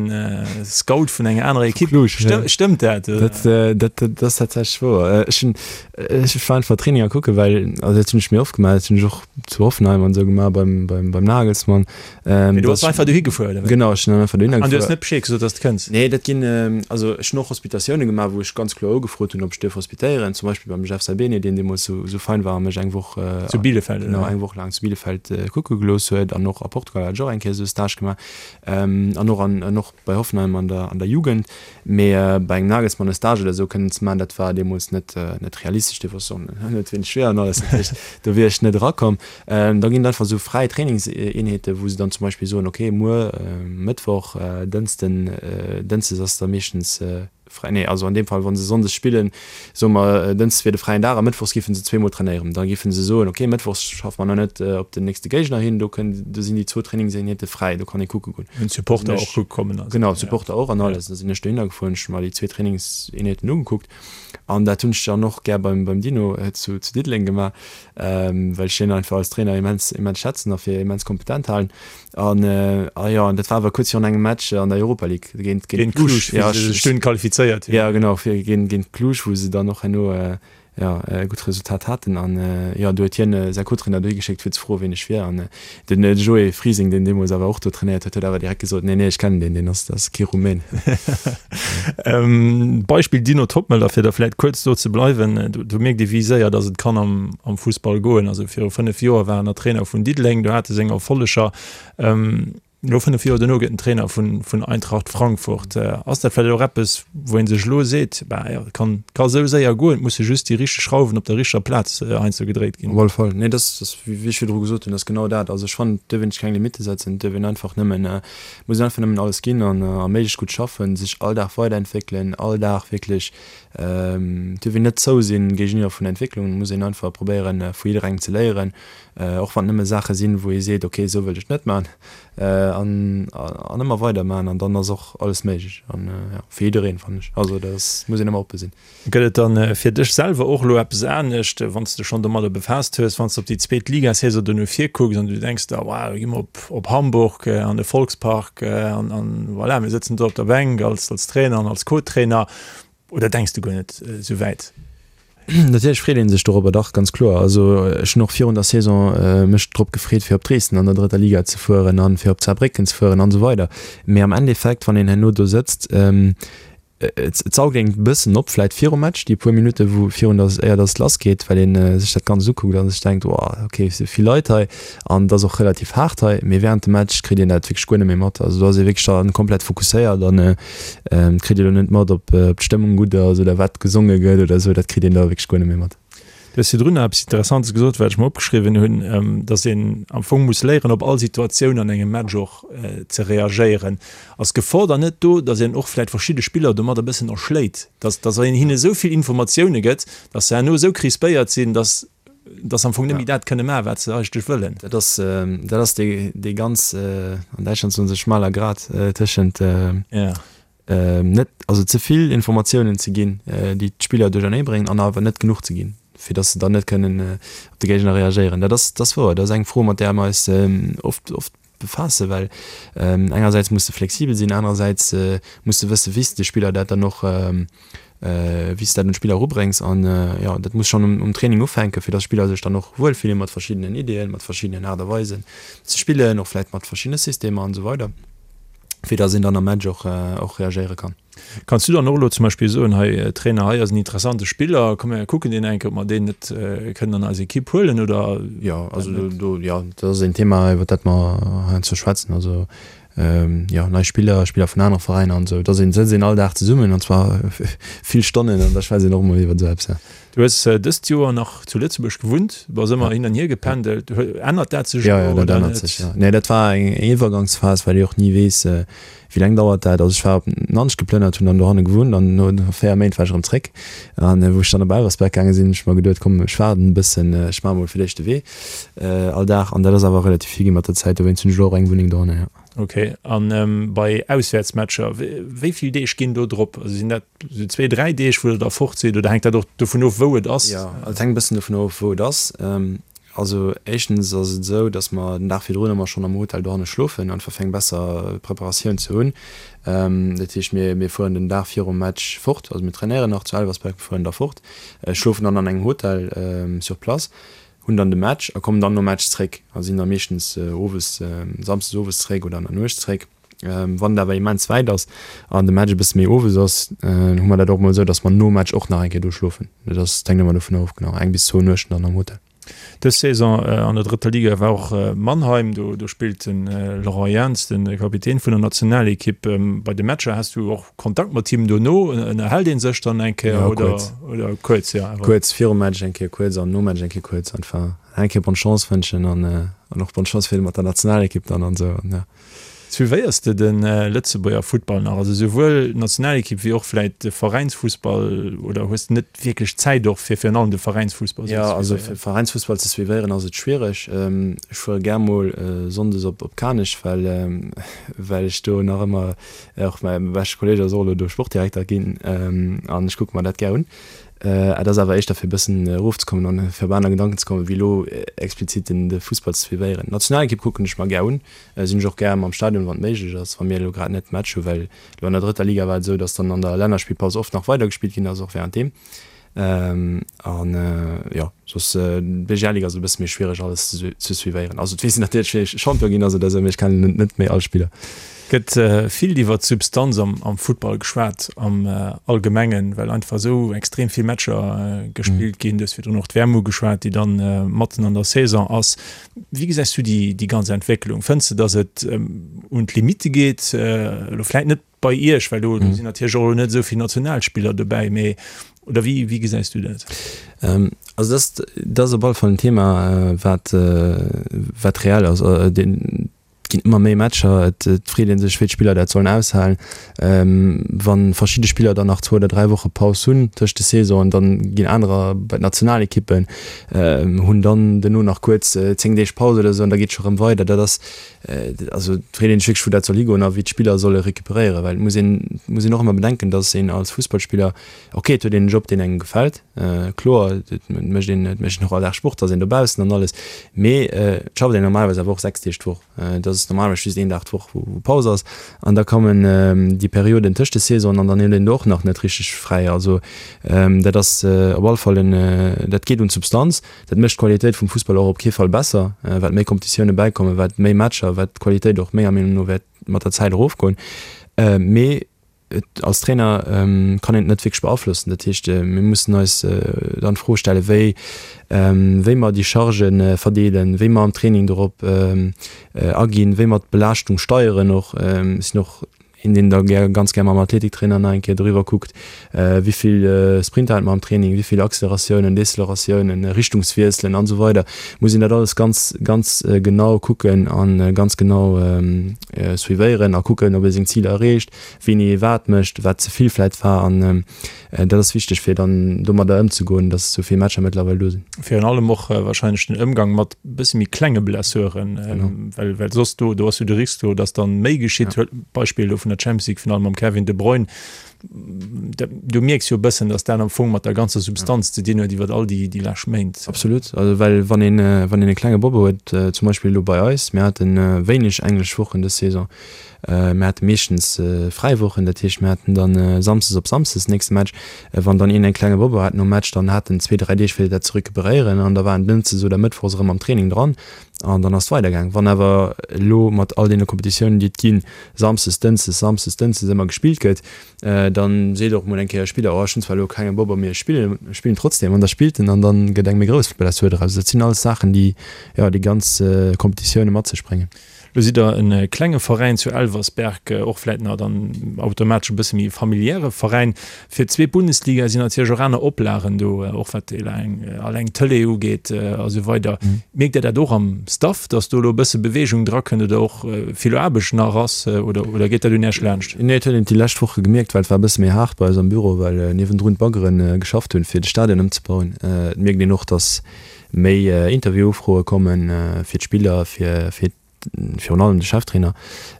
Scout vun enger anerer Ekipp. Stëmmt dat? Dat ass tatsächlech wouer. Ech hunn Ech war einfach Traininger kucken, well, also dat hunn ech méi oft gemaach, dat hunn ech och zu Hoffenheim an esou gemaach beim, beim, beim Nagelsmann. Ähm, Mee du bass einfach dohi gefuer, oder wéi? Genau, ech sinn dann einfach dohinner gefuer. An du hues net Bescheed gesot, dass de kënns? Nee, dat ginn, also ech hunn och Hospitatioune gemaach, wou ech ganz kloer ugefrot hunn, ob ech dierf hospitéieren, zum Beispill beim. beim Jeff Saibene, deen deemools esou esou fein war a mech eng Woch, Zu Bielefeld, oder? Genau, eng Woch laang zu Bielefeld kucke gelooss huet. An och a Portugal hat ech och eng Kéier esou e Stage gemaach. An och an an och bei Hoffenheim an der an der Jugend. Mee bei engem Nagelsmann e Stage oder esou kënnen ze maachen, dat war deemools net net realistesch. Dee wosst och net wéineg schwéier an alles. Dat heescht, do wier ech net erakomm. Da ginn et einfach esou fräi Trainingseenheeten, wou se dann zum Beispill soen, okay, muer Mëttwoch, Dënsten, Dënschdes ass da meeschtens fräi, nee, also an deem Fall, wa se sonndes spillen, soe mer, Dënschdes wier de fräien Dag a mëttwochs géife se zweemol trainéieren. Da géife se soen, okay, mëttwochs schaffe mer nach net op den nächste Géigner hin, do kënn, do sinn déi zwou Trainingseenheete fräi, do kann ee kucke goen. Hunn d'Supporter och kucke kommen also. Genau, d'Supporter och an alles. Da sinn ech dohinner gefuer, hunn ech mer déi zwee Trainingseenheeten ugekuckt an dat hunn ech dann och gär beim, beim Dino zu, zu Diddeleng gemaach, well ech hien einfach als Trainer immens, immens schätzen a fir immens kompetent halen. An ah jo, an dat war awer kuerz virun engem Match an der Europa League géint géint Cluj, wou se sech dunn qualifizéiert hunn. Jo, genau, fir géint géint Cluj, wou se dann och herno jo e gutt Resultat haten. An jo, do huet hien säi Co-Trainer dohi geschéckt, fir ze froen, wien ech wier. An den Joé Frising, deen deemools awer och do trainéiert huet, huet awer direkt gesot, Nee, nee, ech kennen deen, deen ass, dat ass kee Rumän. Beispill Dino Toppmöller, fir da vläicht kuerz do ze bleiwen, do mierkt ee wéi séier datt et kann am am Fussball goen. Also viru 5 Joer war en nach Trainer vun Diddeleng, do hat e seng Erfolleger. Elo 5 Joer dono gëtt en Trainer vun vun Eintracht Frankfurt. Ass dat vläicht och eppes, wou ee sech elo seet, bah jo, et kann ka esou séier goen, et musse just déi richteg Schrauwen op der richteger Plaz heiansdo gedréit ginn? Op alle Fall. Nee, dat ass, wéi ech virdru gesot hunn, dat ass genau dat. Also ech fannen, et duerf een sech keng Limitte setzen, et duerf een einfach nëmmen, muss een einfach nëmmen alles ginn an a méiglechst gutt schaffen, sech all Dag weiderentwéckelen, all Dag wierklech Et dierf een net zou sinn géigeniwwer vun Entwécklungen. Et muss een einfach probéieren, vu jidderengem ze léieren, och wann et nëmme Saache sinn, wou ee seet, ok, esou wëllt ech et net maachen, an an ëmmer weider maachen an dann ass och alles méiglech an jo, fir jiddereen, fannen ech. Also dat ass, muss een ëmmer oppe sinn. Gëtt et dann fir dech selwer och elo eppes anescht, wann s de schonn domadder befaasst hues, wann s de op déi zweet Ligasaison dono virkucks an du denks der, wow, do gi mer op op Hamburg an de Volkspark an an voilà, mir sëtzen do op der Bänk als als Trainer an als Co-Trainer. Oder denks du guer net esou wäit? Natierlech freet ee sech dorobber, dach, ganz kloer. Also ech hunn och virun der Saison mech drop gefreet, fir op Dresden an der drëtter Liga ze fueren an fir op Saarbrécken ze fueren an esou weider. Mee am Endeffekt, wann een herno do sëtzt, et saugt een e bëssen op, vläit virum Match, déi puer Minutte wou virun der, éier datt et lassgeet, well ee sech dat Ganzt ukuckt a sech denkt, Wow, okay, et si vill Leit hei an et ass och relativ haart hei. Mee wärend dem Match kritt een dat wierklech guer net méi mat. Also do ass ee wierklech da komplett fokusséiert an Kritt ee lo net mat, ob d'Stëmmung gutt ass oder wat gesonge gëtt oder esou, dat kritt een da wierklech guer net méi mat. Du hues virdrun nach eppes Interessantes gesot, wat ech mer opgeschriwwen hunn, dass een am Fong muss léieren, op all Situatioun an engem Match och ze reagéieren. Ass d'Gefor dann net do, dass een och vläicht verschidde Spiller domat e bëssen erschléit, dass dass een hinne esou vill Informatioune gëtt, dass se herno esou crispéiert sinn, dass dass se am Fong net méi dat kënne maachen, wat se eigentlech wëllen? Dat ass dat ass dee dee ganz, an Däitschland soen se schmaler Grat tëschent net, also ze vill Informatiounen ze ginn, déi d'Spiller duerchernee bréngen, an awer net genuch ze ginn, fir datt se dann net kënnen op de Géigner reagéieren. Dat ass, dat ass wouer. Dat ass eng Fro, mat där mer eis oft, oft befaassen, well engersäits muss de flexibel sinn, anerersäits muss de wëssen, wéi s de de Spiller dat dann och, wéi s de dat un d'Spiller erubréngs. An jo, dat muss schonn um Training ufänken, fir datt d'Spiller sech dann och wuel fillen mat verschiddenen Ideeën, mat verschiddenen Aart a Weisen ze spillen, och vläicht mat verschiddene Systemer an esou weider, fir datt een dann am Match och och reagéiere kann. Kanns du dann och elo zum Beispill soen, hei Trainer, hei ass en interessante Spiller, komm mir kucken deen eng Kéier, ob mer deen net kënnen an eis Ekipp huelen, oder? Jo, also do, jo, dat ass een Thema, iwwer dat mer heiansdo schwätzen. Also jo, nei Spiller, Spiller vun anere Veräiner an esou. Da sëtzt een all Dag zesummen an zwar vill Stonnen an da schwätzt een och emol iwwer esou eppes, jo. Du hues dëst Joer nach zu Lëtzebuerg gewunnt, bass ëmmer hin an hier gependelt. Ännert dat sech elo oder net? Jo, jo, dat ännert sech, jo. Nee, dat war eng Iwwergangsphas, well ee och ni weess, Wéi laang dauert dat? Also ech war op Nanch geplënnert, hunn dann dohanne gewunnt an no 4 Méint war ech erëm zréck. An wou ech dann op Elversberg gaange sinn, hunn ech mer geduet, komm ech waarden e bëssen, ech maache mol fir d'éischt de Wee all Dag. An dat ass awer relativ vill gi mat der Zäit, dowéinst hunn ech elo och eng Wunneng dohanne, jo. Ok, an bei Auswäertsmatcher, wéi vill Deeg ginn do drop? Also sinn dat esou zwee, dräi Deeg, wou der da fort sidd oder hänkt dat och dovun of, wou et ass? Jo, et hänkt e bëssen dovun of, wou et ass. Also éischtens ass et esou, datt mer den Dag virdrun ëmmer schonn am Hotel dohanne schlofen, einfach fir eng besser Preparatioun ze hunn. Dat heescht, mir mir fueren den Dag virum Match fort, also mir trainéieren nach zu Elversberg, fueren da fort, schlofen dann an engem Hotel sur place, hunn dann de Match a kommen dann nom Match zréck a sinn da meeschtens owes, samsdes owes zréck oder an der Nuecht zréck. Wann et awer immens wäit ass an de Match e bësse méi owes ass, hu mer dat och mol esou, datt mer nom Match och nach eng Kéier do schlofen. Dat ass, dat hänkt ëmmer dovun of, genau, eng bis zwou Nuechten dann am Hotel. Dës Saison an der drëtter Liga war och Mannheim. Do do spillt de Laurent Jans, de Kapitän vun der Nationalekipp. Bei de Matcher has du och Kontakt mat him dono? Ënnerhält ee sech dann eng Kéier Ja, oder kuerz. oder kuerz, jo awer. Kuerz virum Match eng Kéier kuerz an nom Match eng Kéier kuerz. Einfach eng Kéier Bonne Chance wënschen an an och Bonne Chance fir mat der Nationalekipp dann an esou an ja. Suivéiers de de Lëtzebuerger Futtball nach, also souwuel d'Nationalekipp wéi och vläit de Veräinsfussball, oder hues de net wierklech Zäit och fir virun allem de Veräinsfussball esou ze suivéieren? Jo, also fir Veräinsfussball ze suivéieren ass et schwiereg. Ech fuere gär mol sonndes op op Kanech, well well ech do nach ëmmer och mäi beschte Kolleeg ass och elo do Sportdirekter ginn an ech kucke mer dat gär un. Et ass awer éischter fir e bëssen erofzekommen an fir op aner Gedanken ze kommen, wéi elo explizit den de Fussball ze suivéieren. D'Nationalekipp kucken ech mer gär un. Sinn ech och gär am Stadion, wann et méiglech ass, wa mir elo grad net Match hunn, well elo an der drëtter Liga war et esou, datt dann an der Lännerspillpaus oft nach weidergespillt ginn ass, och währenddeem. An jo, soss d'BGL-Liga ass e bësse méi schwiereg alles ze suivéieren. Also et weess een natierlech, wéi Champion ginn ass oder esou, mee ech kennen net méi all Spiller. Gëtt vill iwwer d'Substanz am Futtball geschwat am Allgemengen, well einfach esou extrem vill Matcher gespillt ginn. Du hues virdrun och d'WM ugeschwat, déi dann matten an der Saison ass. Wéi gesäis du déi ganz Entwécklung? Fënns de, datt et un d'Limitte geet? Elo vläit net bei Iech, well do sinn natierlech och elo net esou vill Nationalspiller dobäi, mee oder wéi wéi gesäis du dat? Also dat dat ass op alle Fall en Thema, wat wat reell ass. Et ginn ëmmer méi Matcher, et freet ee sech, wéi d'Spiller dat sollen aushalen. Wa verschidde Spiller dann nach zwou oder 3 Woche Paus hunn tëscht de Saisonen, dann ginn anerer bei d'Nationalekippen, hunn dann duerno nach kuerz 10 Deeg Paus oder esou an da geet et scho rëm weider. Dat ass, also et freet ee sech wierklech, wou dat soll higoen a wéi d'Spiller solle recuperéieren, well et muss een, muss een och ëmmer bedenken, datt een als Fussballspiller, ok, et huet een en Job, deen engem gefält, kloer, et mécht een, et mécht een och all Dag Sport, ass een dobaussen an alles, mee et schafft een normalerweis awer och 6 Deeg d'Woch. Et ass normalerweis just een Dag d'Woch, wou Paus ass an da kommen déi Perioden tëscht de Saisonen an dann huet een do och nach net richteg fräi. Also dat ass op alle Fall en, dat geet un d'Substanz. Dat mécht d'Qualitéit vum Fussball och op kee Fall besser, wat méi Competitioune bäikommen, wat méi Matcher, wat d'Qualitéit och menger Meenung no wäert mat der Zäit erofgoen. Mee Et als Trainer kann een et net wierklech beaflossen. Dat heescht, mir mussen eis dann d'Fro stellen, wéi wéi mer déi Chargë verdeelen, wéi mer am Training dorop aginn, wéi mer d'Belaaschtung steieren och. Ech sinn och een, deen da gär, ganz gär mam Athletiktrainer nach eng Kéier doriwwer kuckt, wéi vill Sprinter hate mer am Training, wéi vill Acceleratiounen, Deceleratiounen, Richtungswiesselen an esou weider. Muss een dat alles ganz, ganz genau kucken a ganz genau suivéieren a kucken, ob ee seng Ziler erreecht. wéini ee wat mécht, wat ze vill vläit war an dat ass wichteg fir dann domadder ëmzegoen, datt esou vill Matcher mëttlerweil do sinn. Virun allem och wahrscheinlech den Ëmgang mat bësse méi klenge Blessuren, well well soss do do ass jo de Risk do, datt dann méi geschitt. Huel d'Beispill elo vun der Champions League Finall mam Kevin De Bruyne, do mierks jo e bëssen, datt dat am Fong mat der ganzer Substanz ze dinn huet iwwer all déi déi lescht Méint. Absolut, also well wann een wann een e klenge Bobbo huet, zum Beispill elo bei eis, mir hate wéineg englesch Wochen dës Saison, Mir hate meeschtens fräi Wochen, dat heescht mir haten dann Samsdes op Samsdes den nächste Match. Wann dann een eng klenge Bobbo hat nom Match, dann hat en zwee, dräi Deeg fir dat ze recuperéieren an da war en Dënschdes oder Mëttwochs erëm am Training dran an dann ass et weidergaang. Wann awer elo mat all deene Competitiounen déi et ginn, Samsdes, Dënschdes, Samsdes, Dënschdes ëmmer gespillt gëtt, dann seet och mol eng Kéier e Spiller, oh ech hunn zwar elo kenge Bobbo, mee ech spillen, ech spillen trotzdem an da spillt en an dann gëtt eng méi grouss Blessur draus. Dat sinn alles Saachen déi, jo, déi ganz Competitioune mat sech bréngen. Lo sidd der e klenge Veräin zu Elversberg, och vläit nach dann automatesch e bësse méi e familiäre Veräin. Fir d'zweet Bundesliga sinn natierlech och aner Oplagen do, och wat eleng alleng d'Tëlee ugeet a sou weider. Mierkt Dir dat och am Staff, datt do elo e bësse Beweegung drakënnt oder och vill Aarbecht nach ass oder oder geet dat un Iech laanscht? Nee, et huet een et déi lescht Woche gemierkt, well et war e bësse méi haart bei eis am Büro, well niewendrun d'Baggere geschafft hunn, fir de Stadion ëmzebauen. Et mierkt een och, datt méi Interviewufroe kommen fir d'Spiller, fir fir virun allem de Cheftrainer,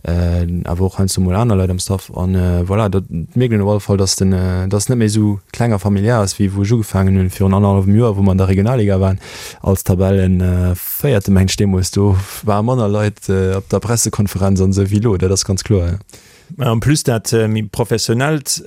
awer och heiansdo mol aner Leit am Staff. An voilà, dat mierkt een op alle Fall, dass den dass et net méi esou kleng a familiär ass, wéi wou ech ugefaangen hunn virun annerhallwem Joer, wou mer an der Regionalliga waren als Tabellenvéierte mengt ech deemools. Do ware manner Leit op der Pressekonferenz an esou wéi elo, dat ass ganz kloer, jo. En plus dat méi professionellt,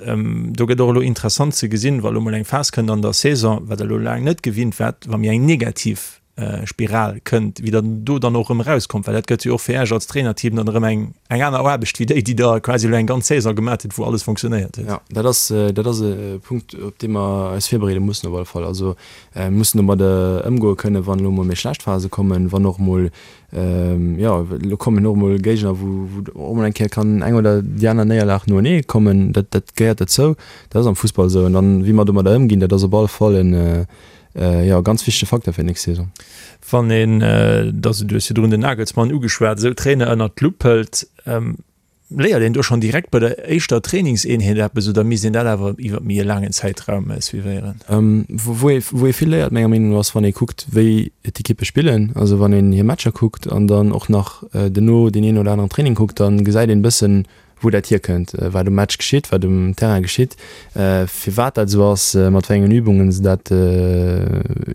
do gëtt och elo interessant ze gesinn, wa lo mol eng Phas kënnt an der Saison, wat Der elo laang net gewinnt waart, wa mir eng negativ. Spiral kënnt, wéi der do dann och erëm erauskommt, well dat gëtt jo och fir Iech als Trainerteam dann erëm eng eng aner Aarbecht wéi déi, déi Der quasi elo eng ganz Saison gemat hutt, wou alles fonctionnéiert huet. Jo, dat ass, dat ass e Punkt, op dee mer eis virbereede mussen op alle Fall. Also mir mussen domat ëmgoe kënnen, wann elo emol méi schlecht Phase kommen, wann och emol, jo, elo kommen och emol Géigner, wou wou och emol eng Kéier kann eng oder déi aner Néierlag noenee kommen. Dat dat gehéiert dozou, dat ass am Fussball esou. An dann, wéi mer domadder ëmginn, dat ass op alle Fall en, Jo, ganz wichtege Facteur fir d'nächst Saison. Wann een, dass du hues virdrun den Nagelsmann ugeschwat, esou Trainer ënnert d'Lupp hëlt, léiert een do schonn direkt bei der éischter Trainingseenheet eppes oder misst een dat awer iwwer méi e laangen Zäitraum suivéieren? Wou ee wou ee vill léiert menger Meenung no ass, wann ee kuckt, wéi d'Ekippe spillen. Also wann een hir Matcher kuckt an dann och nach duerno deen een oder aneren Training kuckt, da gesäit een e bëssen, wou dat hierkënnt, wat um Match geschitt, wat um Terrain geschitt, firwat dat esou ass, mat wéi engen Übungen se dat,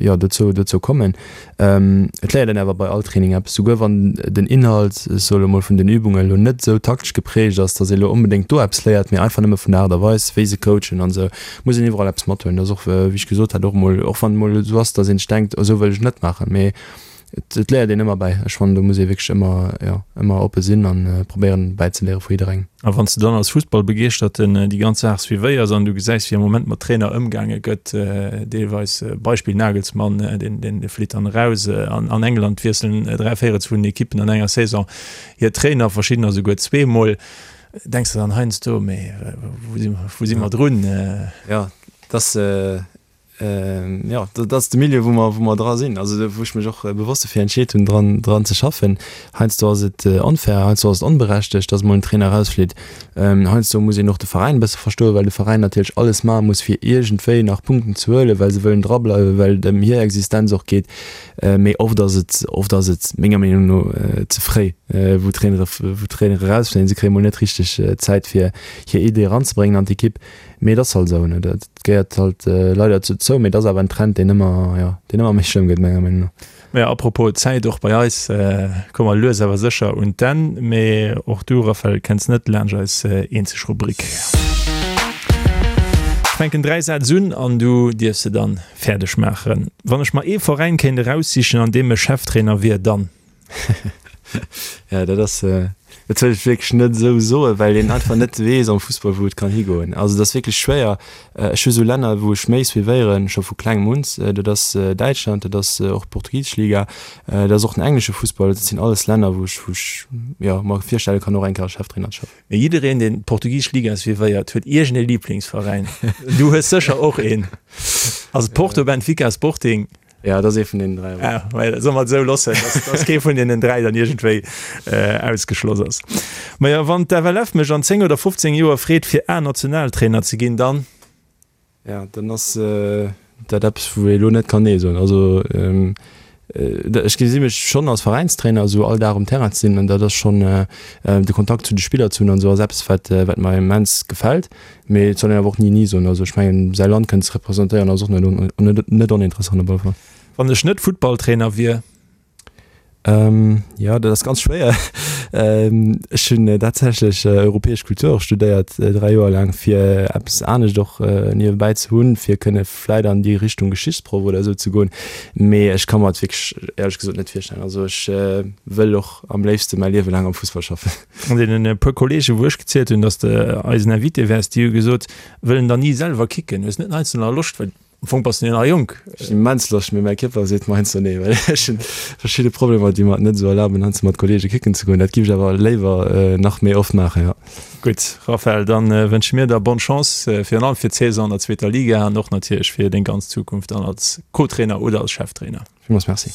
jo, dozou, dozou kommen. Et léiert een awer bei all Training eppes, souguer wann den Inhalt, ech soe lo mol, vun den Übungen elo net esou taktesch geprägt ass, datt ee lo onbedéngt do eppes léiert, mee einfach nëmme vun der Aart a Weis, wéi se coachen an esou, muss een iwwerall eppes mathuelen. Dat ass och, wéi ech gesot hat, och emol, och wann et mol esou ass, datt een sech denkt, esou wëll ech net maachen, mee Et léiert een ëmmer bäi. Ech fannen, do muss ee wierklech ëmmer, jo, ëmmer oppe sinn an probéieren bäizeléiere vu jidderengem. A wann s de dann als Fussballbegeeschterten déi ganz Saach suivéiers an du gesäis, wéi am Moment mat Trainer ëmgaange gëtt, deelweis, Beispill Nagelsmann, deen, deen flitt dann eraus, an an England wiesselen 3 Véirels vun den Ekippen an enger Saison hir Trainer, verschiddener souguer zweemol, denks de dann heiansdo, mee wou si, wou si mer drun? Jo, et ass, Jo, dat ass de Milieu, wou mer, wou mer dra sinn, also wou ech mech och bewosst dofir entscheet hunn, dran, dran ze schaffen. Heiansdo ass et onfair, heiansdo ass et onberechtegt, dass emol en Trainer erausflitt. Heiansdo muss een och de Veräin e bësse verstoen, well de Veräin natierlech alles maache muss, fir iergendwéi nach Punkten ze huelen, well se wëllen drableiwen, well et ëm hir Existenz och geet. Mee oft ass et, oft ass et menger Meenung no ze fréi, wou Trainere, wou Trainere erausfléien. Se kréie mol net richteg Zäit, fir hir Idee eranzebréngen an d'Ekipp. Mee et ass halt esou, ne, dat gehéiert halt leider dozou, mee et ass awer en Trend, deen ëmmer, jo, deen ëmmer méi schlëmm gëtt, menger Meenung no. Maja, apropos Zäit, och bei eis komme mer lues awer sécher un d'Enn. Mee och du, Raphaël, kenns net laanscht eis eenzeg Rubrik. Ech fänken 3 Sätz un an du dierfs se dann fäerdeg maachen. Wann ech mer ee Veräin kéint eraussichen, an deem ech Cheftrainer wier, dann. Ja, dat ass, dat wëll ech wierklech net esou soen, well een einfach net weess am Fussball, wou et kann higoen. Also et ass wierklech schwéier. Ech hu sou Länner, wou ech méi suivéieren, scho vu klengem un. Dat ass Däitschland, dat ass och d'portugisesch Liga, dat ass och den englesche Fussball. Dat sinn alles Länner, wou ech, wou ech, jo, mer virstelle kann, och eng Kéier als Cheftrainer ze schaffen. Mee jiddereen, deen d'portugisesch Liga suivéiert, huet iergend ee Liblingsveräin. Du hues sécher och een. Ass et Porto, Benfica, Sporting? Ja, dat ass ee vun deenen 3. Ah, well, soll mer et esou loossen, dass, dass kee vun deenen 3 dann iergendwéi äh, ausgeschloss ass. Maja, wann d'FLF mech an 10 oder 15 Joer freet, fir A-Nationaltrainer ze ginn, dann? Ja, dann ass äh, dat eppes, wou ee lo net kann Nee soen. Also, ähm, äh, ech gesi mech schonn als Veräinstrainer, esou all Dag um Terrain ze sinn, an dat ass schonn äh, de Kontakt zu de Spiller ze hunn an esou ass eppes, wat, wat mer immens gefält. Mee et soll een awer och ni ni soen. Also ech mengen, säi Land kënnen ze representéieren ass och net net oninteressant op alle Fall. Wann ech net Futtballtrainer wier? Jo, dat ass ganz schwéier. Ech hunn tatsächlech europäesch Kultur och studéiert, 3 Joer laang, fir eppes anescht och niewebäi ze hunn, fir kënne vläit an déi Richtung Geschichtsproff oder esou ze goen. Mee ech ka mer et wierklech éierlech gesot net virstellen. Also ech wëll och am léifste mäi Liewe laang am Fussball schaffen. An deenen puer Kollegen, wou ech gezielt hunn, dass de eisen Invité wäers, déi hu gesot, wëllen der ni selwer kicken. Hues net heiansdo nach Loscht, well am Fong bass de jo nach jonk. Ech hunn immens Loscht, mee mäi Kierper seet mer heiansdo nee, well ech hunn verschidde Problemer, déi mer et net esou erlaben, heiansdo mat Kollege kicken ze goen. Dat giff ech awer léiwer nach méi oft maachen, jo. Gutt, Raphaël, dann wënsche mir der bonne Chance, virun allem fir d'Saison an der zweeter Liga an och natierlech fir deng ganz Zukunft dann als Co-Trainer oder als Cheftrainer. Villmools Merci.